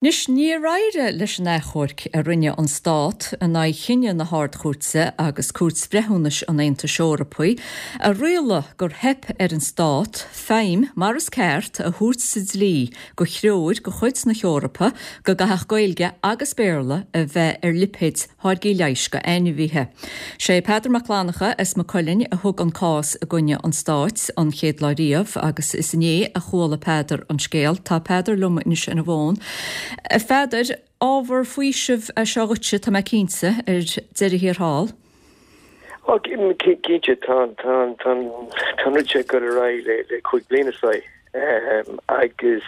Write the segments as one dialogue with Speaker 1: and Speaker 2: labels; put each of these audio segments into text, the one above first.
Speaker 1: Anois, níor éirigh leis an achomharc a rinne an Stát in aghaidh chinneadh na hArd-Chúirte agus Cúirt Bhreithiúnais an Aontais Eorpaigh a rialaigh gur theip ar an Stát feidhm mar is ceart a thabhairt sa dlí do threoir de chuid na hEorpa go gcaithfeadh Gaeilge agus Béarla a bheith ar lipéid tháirgí leighis do ainmhithe. Sé Peadar Mac Fhlannchadha as Maigh Cuilinn a thug an cás i gcoinne an Stáit an chéad lá riamh agus is inné a chuala Peadar an scéal. Tá Peadar liom anois ar an bhfón. A Pheadair, ábhar faoisimh é seo dhuitse, tá mé cinnte, ar deireadh thiar thall.
Speaker 2: Ó, cinnte, tá an rud seo ag dul ar aghaidh le 5 bliana is dóigh. Agus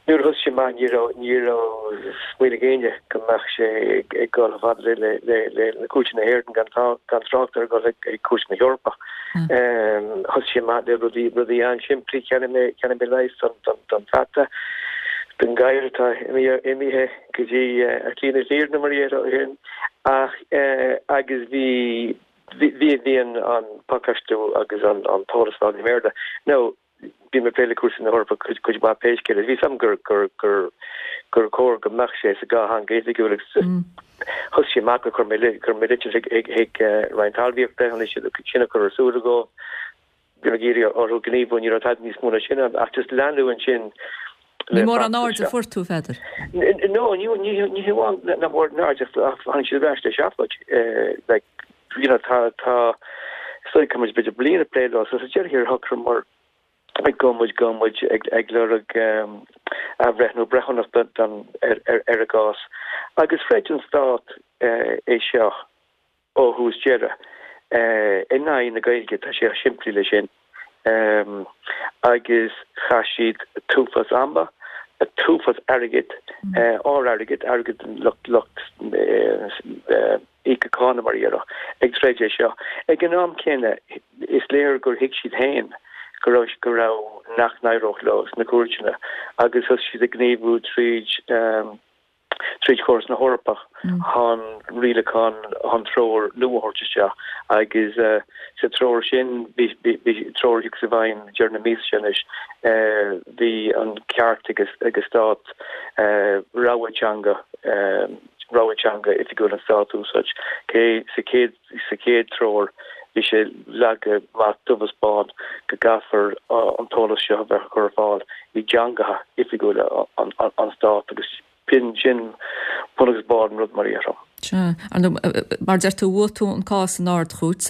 Speaker 2: nuair a thosaigh sé amach ní raibh ní raibh smaoineamh ag éinne go mbeadh sé ag dul chomh fada le le le le cúirteanna na hÉireann gan gan trácht ar dhul ag cúirt na hEorpa. Thosaigh sé amach le rudaí rudaí an-simplí, cheannaigh mé cheannaigh mé leigheas don don don pheata, don ghadhar atá imithe imithe go dtí a shlí na hIarna mar a déarfá ach agus bhí bhí bhí an an pacáistiú agus an an t-eolas ar fáil i mBéarla. Now bhí mé ag plé le cúrsaí na hEorpa cuid cuid mhaith pé scéal é. Bhí 'fhios a'm gur gur gur gur chóir go mbeadh sé sa dhá theanga oifigiúil agus thosaigh sé amach gur chuir mé chuir mé litir chuig chuig chuig Roinn Talmhaíochta chun sin a chur ar súil dóibh. Bhí mé ag iarraidh orthu gníomhú, ní raibh tada níos mó ná sin ann ach just leanadh ansin
Speaker 1: Ní mórán aird a fuair tú, a Pheadair.
Speaker 2: No, ní ní hamháin nach mórán aird ach tháinig siad ar ais le seafóid. Like, you know, tá tá is dóigh go muid b'fhéidir bliain ag plé leo so sa deireadh thiar shocraíomar go mbeadh muid go mbeadh muid ag ag lorg athbhreithniú breithiúnach don ar ar ar an gcás. Agus throid an stát é seo. ó thús deireadh, in aghaidh na Gaeilge, tá sé chomh simplí le sin, agus chaith siad t-uafás ama, t-uafás airgid, ár airgead, airgead an lucht lucht íoctha cánach mar a déarfá, ag troid é seo. Ag an am céanna, is léir gur thuig siad féin go raibh go raibh nach n-éireodh leo sna cúirteanna agus thosaigh siad ag gníomhú tríd tríd chóras na hEorpa chun rialachán, chun treoir nua a thabhairt isteach agus sa treoir sin, bhí treoir a thiocfas i bhfeidhm deireadh na míosa seo anois, bhí an ceart ag an stát rogha teanga, rogha teanga oifigiúil an stáit a úsáid. Cé sa chéad Sa chéad treoir, bhí sé leagtha amach dubh is bán go gcaithfear an t-eolas seo a bheith á chur ar fáil i dteangacha oifigiúla an stáit agus b'in sin bun agus barr an rud mar a déarfá.
Speaker 1: Sea. Ar ndóigh, mar a deir tú, bhuaigh tú an cás san Ard-Chúirt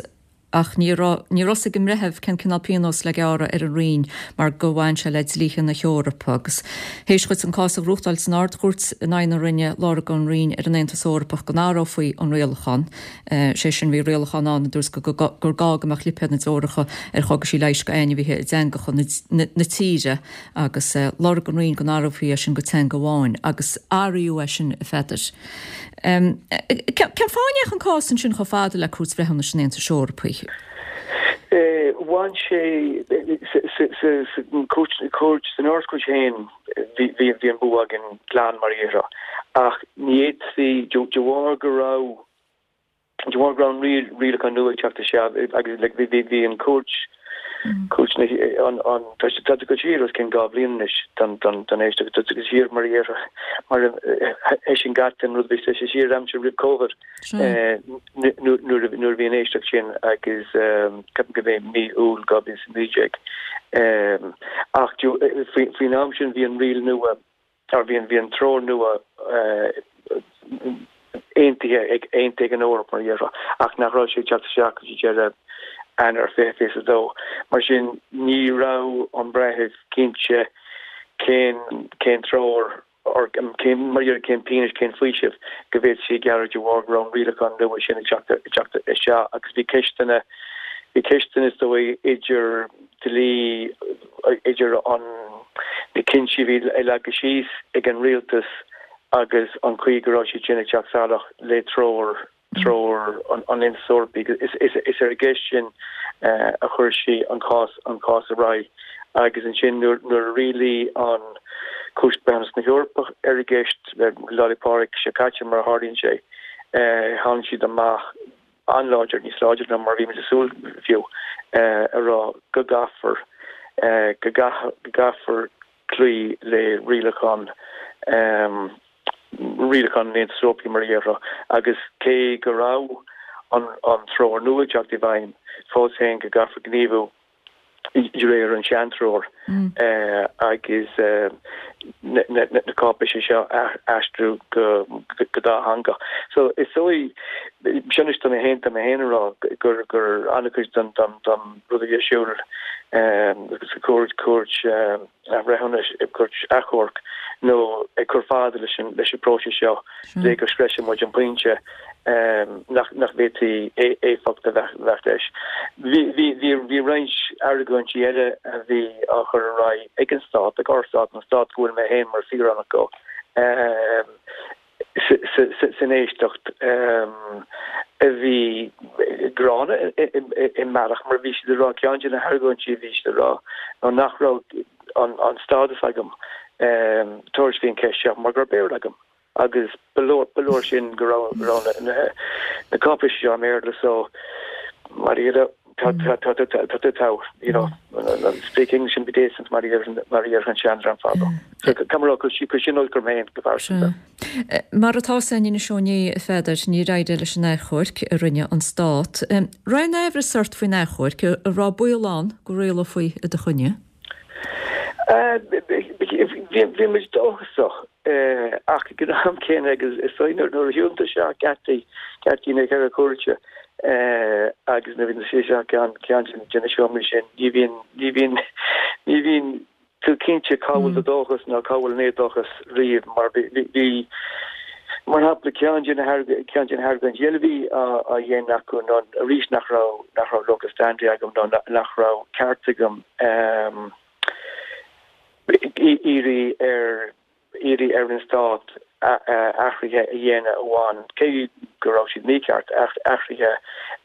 Speaker 1: ach ní raibh, ní raibh 'fhios ag an mbreitheamh cén cineál pionóis le gearradh ar an Roinn mar gur bhain sé le dlíthe na hEorpa agus théis dhuit an cás a ghnóthachtáil san Ard-Chúirt in aghaidh na Roinne, lorg an Roinn ar an Aontas Eorpach go n-athrófaí an rialachán. Sé sin, bhí rialachán ann a dúirt gur gá go mbeadh lipéad na dtreoracha ar chógaisí leighis do ainmhithe i dteangacha na tíre agus lorg an Roinn go n-athrófaí é sin go teanga amháin agus athraíodh é sin, a Pheadair. Cén fáth a ndeachaigh an cás ansin chomh fada le Cúirt Bhreithiúnais an Aontais Eorpaigh?
Speaker 2: Bhain sé sa chúirt, san Ard-Chúirt féin bhí an bua againn glan mar a déarfá ach ní fhéadfaí, de bharr go raibh De bharr go raibh an rialachán nua ag teacht isteach agus like bhí bhí an chúirt cúirt na an an tá sé tá go siar os cionn 2 bhliain anois don don don éisteacht tá go siar mar a déarfá mar eisean gach an rud bhí sé siar aimsir roimh Covid nuair nuair a bhí an éisteacht sin agus ceapaim go b'é mí Iúil 2019 ach faoin am sin bhí an riail nua Tá, bhí an, bhí an treoir nua aontaithe ag, aontaithe ag an Eoraip mar a déarfá, ach nach raibh sé ag teacht isteach go dtí deireadh Eanáir 2022. Mar sin, ní raibh an breitheamh cinnte cén, cén treoir or cén, mar a déarfá, cén pionós, cén faoiseamh go bhféadfaí a ghearradh de bharr go raibh an rialachán nua sin ag teacht, ag teacht isteach agus bhí ceisteanna, bhí ceisteanna is dóigh idir dlí idir an na cinntí a bhí leagtha síos ag an rialtas agus an chaoi go raibh siad sin ag teacht salach le treoir treoir an Aontais Eorpaigh. Is ar an gceist sin a chuir sí an cás an cás ar aghaidh agus ansin nuair nuair a rialaigh an Chúirt Breithiúnas na hEorpa ar an gceist Lá 'le Pádraig seo caite mar a tharlaíonn sé, tháinig siad amach an-láidir, níos láidre ná mar a bhí muid ag súil fiú, a rá go gcaithfear, go gcaithfear cloí le rialachán. Rialachán an Aontais Eorpaigh mar a déarfá, agus cé go raibh an treoir nua ag teacht i bhfeidhm, fós féin go gcaithfear gníomhú de réir an sean-treoir agus na cáipéisí seo a aistriú go dátheangach. So is dóigh, sin anois tá mé féin, tá mé féin ag rá gur gur an-chuid den rud a bhí ar siúl sa chúirt, cúirt athbhreithiúnais, cúirt achomhairc nó ag cur fada leis an leis an bpróiseas seo le go sroiseann muid an pointe nach nach bhféadfaí éifeacht a bheith leis. Bhí bhí bhí bhí roinnt argóintí eile a bhí á chur ar aghaidh ag an Stát, ag ár Stát, an Stát go bhfuil mé féin mar saoránach de. san éisteacht a bhí gránna i mbealach mar bhí siad ag rá, ceann de na hargóintí a bhí siad ag rá ná nach raibh an stádas agam tabhairt faoin cheist seo mar go raibh Béarla agam agus ba leor sin go raibh na cáipéisí seo i mBéarla so mar a Tá tú togha, you know, speak English and be decent mar a déarfadh an seandream fadó. So caithfidh mé a rá, chuir sin olc orm féin go pearsanta.
Speaker 1: Mar atá a fhios againn anois ó inné, a Pheadair, níor éirigh leis an achomharc a rinne an Stát. Raibh aon aimhreas ort faoin achomharc? An raibh baol ann go rialófaí i do choinne?
Speaker 2: Bhí muid dóchasach ach ag an am céanna agus is dóigh nuair a shiúlann tú isteach geataí geataí na gceithre cúirte agus nuair a bhíonn tú isteach ceann ceann de na seomraí sin ní bhíonn ní bhíonn ní bhíonn tú cinnte cá bhfuil do dóchas nó cá bhfuil an éadóchas riamh mar bhí Mar shampla, ceann de na ceann de na hargóintí eile a bhí á dhéanamh acu ná arís nach raibh nach raibh locus standi agam nó nach raibh ceart agam iarraidh ar iarraidh ar an stát athruithe a dhéanamh a bhain, cé go raibh siad mícheart, athruithe a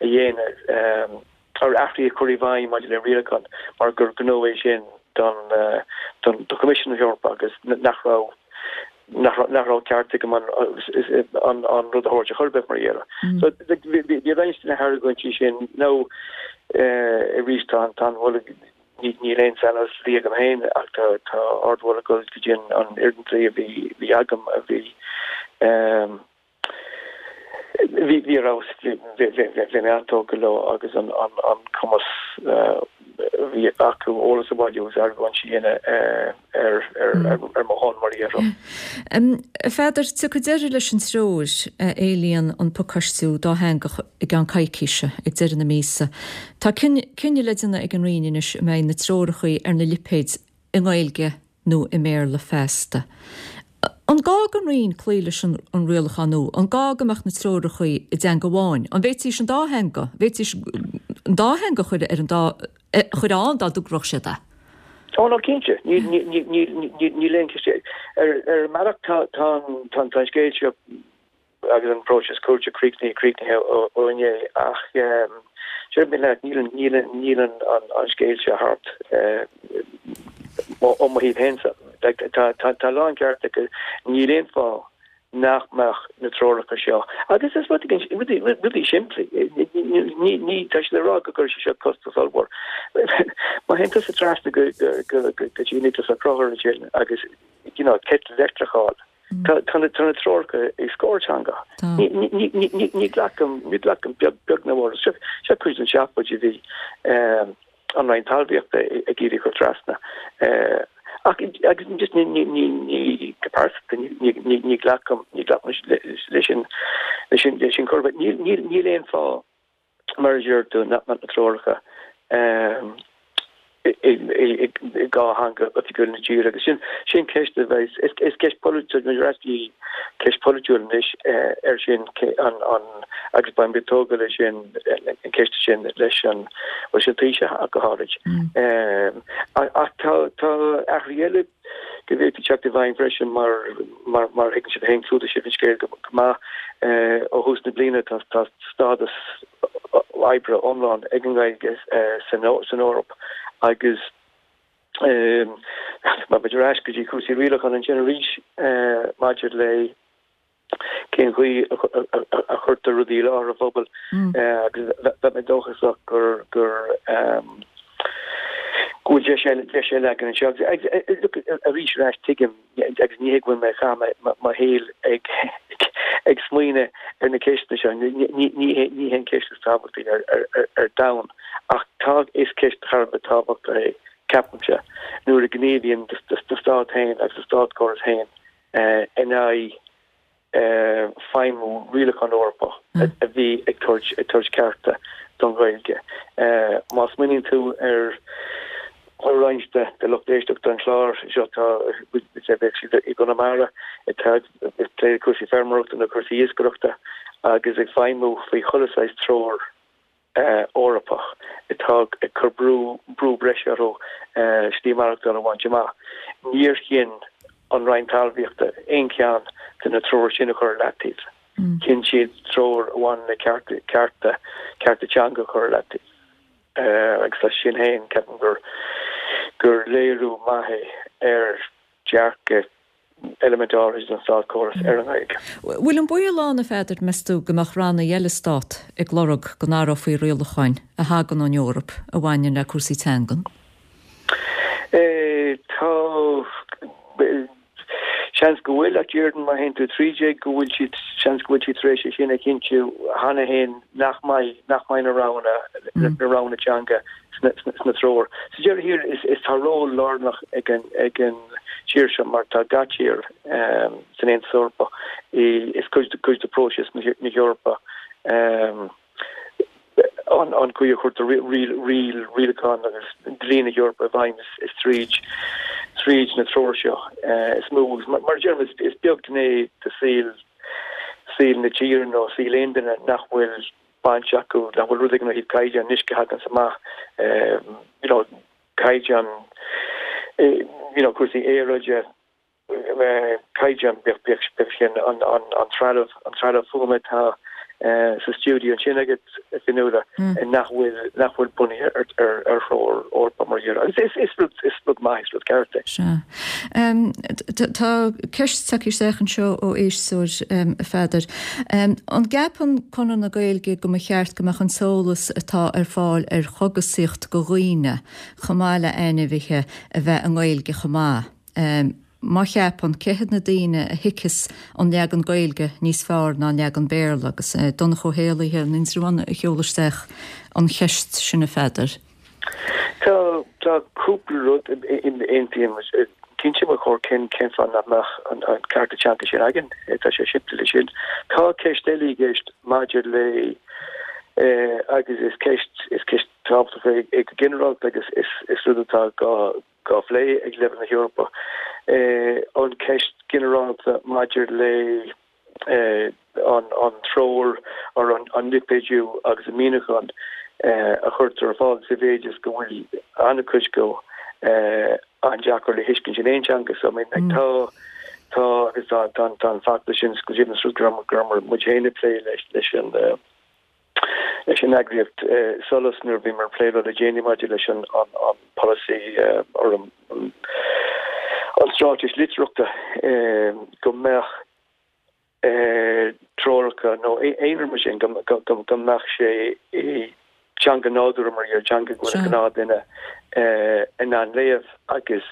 Speaker 2: dhéanamh ar athruithe a chur i bhfeidhm maidir le rialachán mar gur gnó é sin don don do Choimisiún na hEorpa agus nach raibh nach raibh ceart agam an an an rud a thabhairt ar chor ar bith mar a déarfá. So bhí roinnt de na hargóintí sin nó arís tá an tá an mholadh níl aon saineolas dlí agam féin ach tá tá ardmholadh ag dul go dtí an an fhoireann dlí a bhí bhí agam a bhí Bhí bhí ar fheabhas, bhí mé an-tógtha leo agus an cumas a bhí acu eolas a bhailiú agus argóintí a dhéanamh ar mo shon, mar a déarfá.
Speaker 1: A Pheadair, tiocfaidh deireadh leis an treoir a éilíonn an pacáistiú dátheangach i gceann coicíse, ag deireadh na míosa. Tá cinneadh le déanamh ag an Roinn anois an mbeidh na treoracha ar na lipéid i nGaeilge nó i mBéarla feasta. An gá don Roinn cloí leis an rialachán nua? An gá go mbeadh na treoracha i dteanga amháin? An bhféadfaidís an dá theanga, bhféadfaidís an dá theanga a chur ar an dá, a chur ann dá dtogródh siad é?
Speaker 2: Ó no cinnte, níl aon cheist. Ar ar mbealach tá tá an scéal seo agus an próiseas cúirte críochnaithe críochnaithe ó inné ach déarfaidh mé leat níl níl níl an an scéal seo thart ó mo thaobh féin-sa. Tá tá tá lán ceart acu níl aon fáth nach mbeadh na treoracha seo agus is rud rudaí rudaí simplí ní ní tá siad ag rá go gcuirfidh sé seo costas ollmhór. Má théann tusa trasna go go go go dtí Nioclás Ó Conchúir ansin agus you know citeal leictreach a fháil Tá na treoracha i scór teanga. Ní ghlacaim, ní ghlacaim beag beag ná mór. Seo cuid den seafóid a bhí an Roinn Talmhaíochta ag iarraidh a chur trasna. Ach agus just ní ní ní ní go pearsanta ní ní ní ghlacaim ní ghlacaim leis sin leis sin leis sin chor ar bith. Níl níl níl aon fáth mar a deir tú, nach mbeadh na treoracha i dá theanga oifigiúil na tíre. Agus sin sin ceist a bheidh, is ceist polaitiúil, ar ais go dtí ceist polaitiúil anois ar sin an an agus beidh muid tógtha leis sin an ceist sin leis an bhuel sin Taoiseach ach go háirid. Ach tá tá athruithe eile go bhféadfaí teacht i bhfeidhm freisin mar mar mar thuigeann sibh féin, chlúdaigh sibh an scéal go maith ó thús na bliana tá tá stádas oibre iomlán ag an nGaeilge san san Eoraip agus má muid ar ais go dtí cúrsaí rialacháin ansin arís maidir le cén chaoi a chuirtear rudaí i láthair an phobail agus bheadh mé dóchasach gur gur. Go bhfuil deis eile, deis eile againn anseo. Agus, look, arís ar ais, tuigim, agus ní hé go bhfuil mé ag caitheamh mo shaoil ag, ag smaoineamh ar na ceisteanna seo, ní, ní, ní hé, ní hé an ceist is tábhachtaí ar, ar, ar, ar domhan, ach tá, is ceist thar a bheith tábhachtach é, ceapaimse, nuair a ghníomhaíonn do, do, do stát féin agus do státchóras féin in aghaidh feidhmiú rialachán Eorpach a bhí ag tabhairt cearta don Ghaeilge. Má smaoiníonn tú ar roinnt de lucht éisteachta an chláir seo, tá, bheadh siad i gConamara atá ag plé le cúrsaí feirmeoireachta nó cúrsaí iascaireachta agus ag feidhmiú faoi chuile saghas treoir Eorpach atá ag cur brú brú breise orthu slí maireachtála a bhaint amach. Níor chinn an Roinn Talmhaíochta aon cheann de na treoir sin a chur ar leataobh. Chinn siad treoir a bhaineann le cearta cearta cearta teanga a chur ar leataobh. Agus as sin féin, ceapaim gur gur léiriú maith é ar dhearcadh eilimint áirithe den státchóras ar an
Speaker 1: nGaeilge. Bhfuil an baol ann, a Pheadair, meas tú, go mbeadh ranna eile Stát ag lorg go n-athrófaí rialacháin a thagann ón Eoraip a bhaineann le cúrsaí teangan?
Speaker 2: Tá. Seans go bhfuil, ach déarfainn má théann tú tríd é go bhfuil siad, seans go bhfuil siad tar éis é sin a chinntiú cheana féin nach mbeidh, nach mbeidh na roghanna, na roghanna teanga sna treoir. Sa deireadh thiar, is tá ról lárnach ag an ag an tír seo mar tá gach tír san Aontas Eorpach is cuid cuid de próiseas na hEorpa an an chaoi a chuirtear riail rialacháin agus dlí na hEorpa i bhfeidhm is tríd tríd na treoir seo is mó agus mar a deirim is beag gné de saol saol na tíre nó saol aon duine nach bhfuil baint acu, nach bhfuil rud éigin ó thaobh caighdeán uisce a thaganns amach, you know, caighdeán, you know, cúrsaí aeráide, caighdeán, bíodh, bíodh, bíodh sin an, an, an trealamh, an trealamh fuaime atá sa stiúideo ansin agat, a Fionnuala, nach bhfuil, nach bhfuil bunaithe ar, ar, ar threoir Eorpach mar dhea. Agus is, is rud, is rud maith, is rud ceart
Speaker 1: é. Sea. Tá ceist tagtha isteach anseo ó éisteoir, a Pheadair. An gceapann Conradh na Gaeilge go mba cheart go mbeadh an t-eolas atá ar fáil ar chogasaíocht go dhaoine, chomh maith le ainmhithe, a bheith i nGaeilge chomh maith? Má cheapann, cé hiad na daoine a thuigfeas an leagan Gaeilge níos fearr ná an leagan Béarla? Agus Donncha Ó hÉallaithe in Indreabhán a sheol isteach an cheist sin, a Pheadair.
Speaker 2: Tá, tá cúpla rud aontaím, cinnte ba chóir cén cén fáth nach mbeadh an cearta teanga sin againn, tá sé simplí leis sin. Tá ceist eile i gceist maidir le agus is ceist is ceist tábhachtach é go ginearálta agus is is rud atá gá gá phlé ag leibhéal na hEorpa an ceist ginearálta maidir le an treoir or an lipéadú agus an míniúchán a chuirtear ar fáil sa mhéid is go bhfuil an-chuid go an-deacair le thuiscint in aon teanga. So I mean like tá tá agus tá tá tá an feachtas sin go deimhin is rud go raibh go raibh muid féin ag plé leis leis an leis an eagraíocht SOLAS nuair a bhíomar ag plé leo le déanaí maidir leis an an an polasaí or an an straitéis litearthachta go mbeadh treoracha nó aon rud mar sin go mbeadh sé i dteanga nádúrtha mar dhea, teanga go bhfuil an gnáthdhuine in ann léamh agus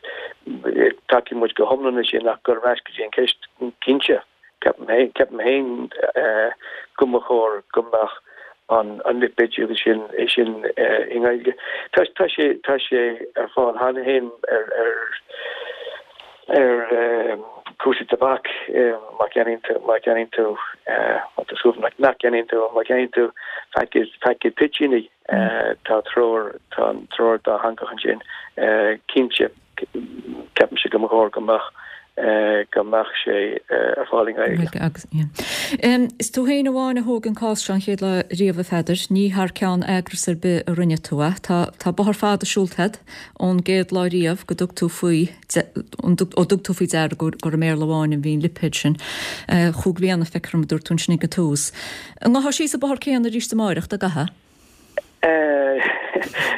Speaker 2: tacaíonn muid go hiomlán leis sin ach dul ar ais go dtí an cheist cinnte, ceapaim féin go mba chóir go mbeadh an lipéadú agus sin é sin i nGaeilge. Tá tá sé tá sé ar fáil cheana féin ar ar ar cúrsaí tobac má cheannaíonn tú má cheannaíonn tú má tá súil nach nach gceannaíonn tú má cheannaíonn tú paicéad paicéad toitíní tá treoir tá an treoir dátheangach ansin cinnte ceapaimse go mba chóir go mbeadh go mbeadh sé ar fáil i
Speaker 1: nGaeilge. Agus, yeah. Is tú féin amháin a thóg an cás seo an chéad lá riamh, a Pheadair. Ní thar ceann eagras ar bith a rinne tú é. Tá, tá bóthar fada siúlta agat ón gcéad lá riamh go dtug tú faoi, ó dtug tú faoi deara gur i mBéarla amháin a bhí an lipéad sin. Chúig bhliana, feictear dom, a dúirt tú ansin ag an tús. An ngabhfá síos an bóthar céanna arís amáireach, dá gcaithfeá?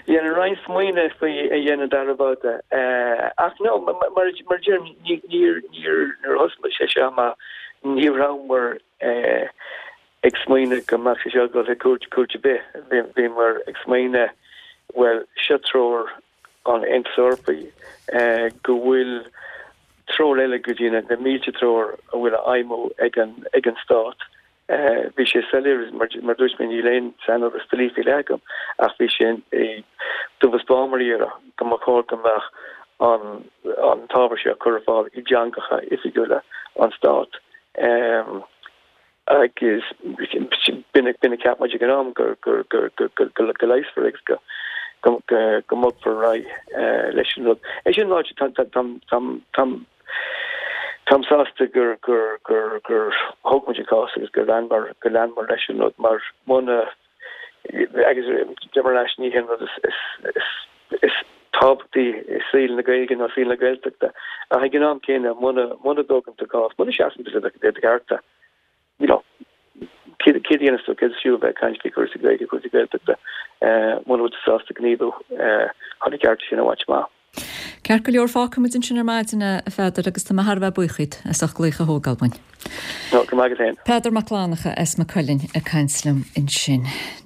Speaker 2: Dhéanfainn roinnt smaoineamh faoi a dhéanamh dara babhta. Ach no, mar a deirim, níor, níor, nuair a thosaigh sé seo amach, ní rabhamar ag smaoineamh go mbeadh sé seo ag dul chuig cúirt, cúirt ar bith. Bhíomar ag smaoineamh, bhuel, seo treoir. an Aontais Eorpaigh go bhfuil treoir eile go dtí na mílte treoir a bhfuil á fheidhmiú ag an ag an Stát. Bhí sé soiléir, mar a dúirt mé, níl aon saineolas dlí faoi leith agam, ach bhí sé dubh is bán mar a déarfá go mba chóir go mbeadh an an t-ábhar seo curtha ar fáil i dteangacha oifigiúla an Stáit. Agus b'in a cheap muid ag an am, go leigheasfar agus go mbogfar ar aghaidh leis an rud. É sin ráite, táim sásta gur thóg muid an cás agus gur leanamar leis an rud mar muna, agus deirim ar ais, ní hé an rud is tábhachtaí i saol na Gaeilge ná saol na Gaeltachta ach ag an am céanna muna dtógann tú cás, muna seasann tú le do chearta, you know, céard a dhéanas tú, céard is fiú a bheith ag caint faoi chúrsaí Gaeilge, cúrsaí Gaeltachta, muna bhfuil tú sásta gníomhú chun na cearta sin a bhaint amach.
Speaker 1: Ceart go leor, fágfaimid ansin ar maidin é, a Pheadair, agus tá mé thar a bheith buíoch díot as ucht glaoch a thógáil uainn.
Speaker 2: No, go raibh maith agat féin.
Speaker 1: Peadar Mac Fhlannchadha as Maigh Cuilinn ag caint liom ansin.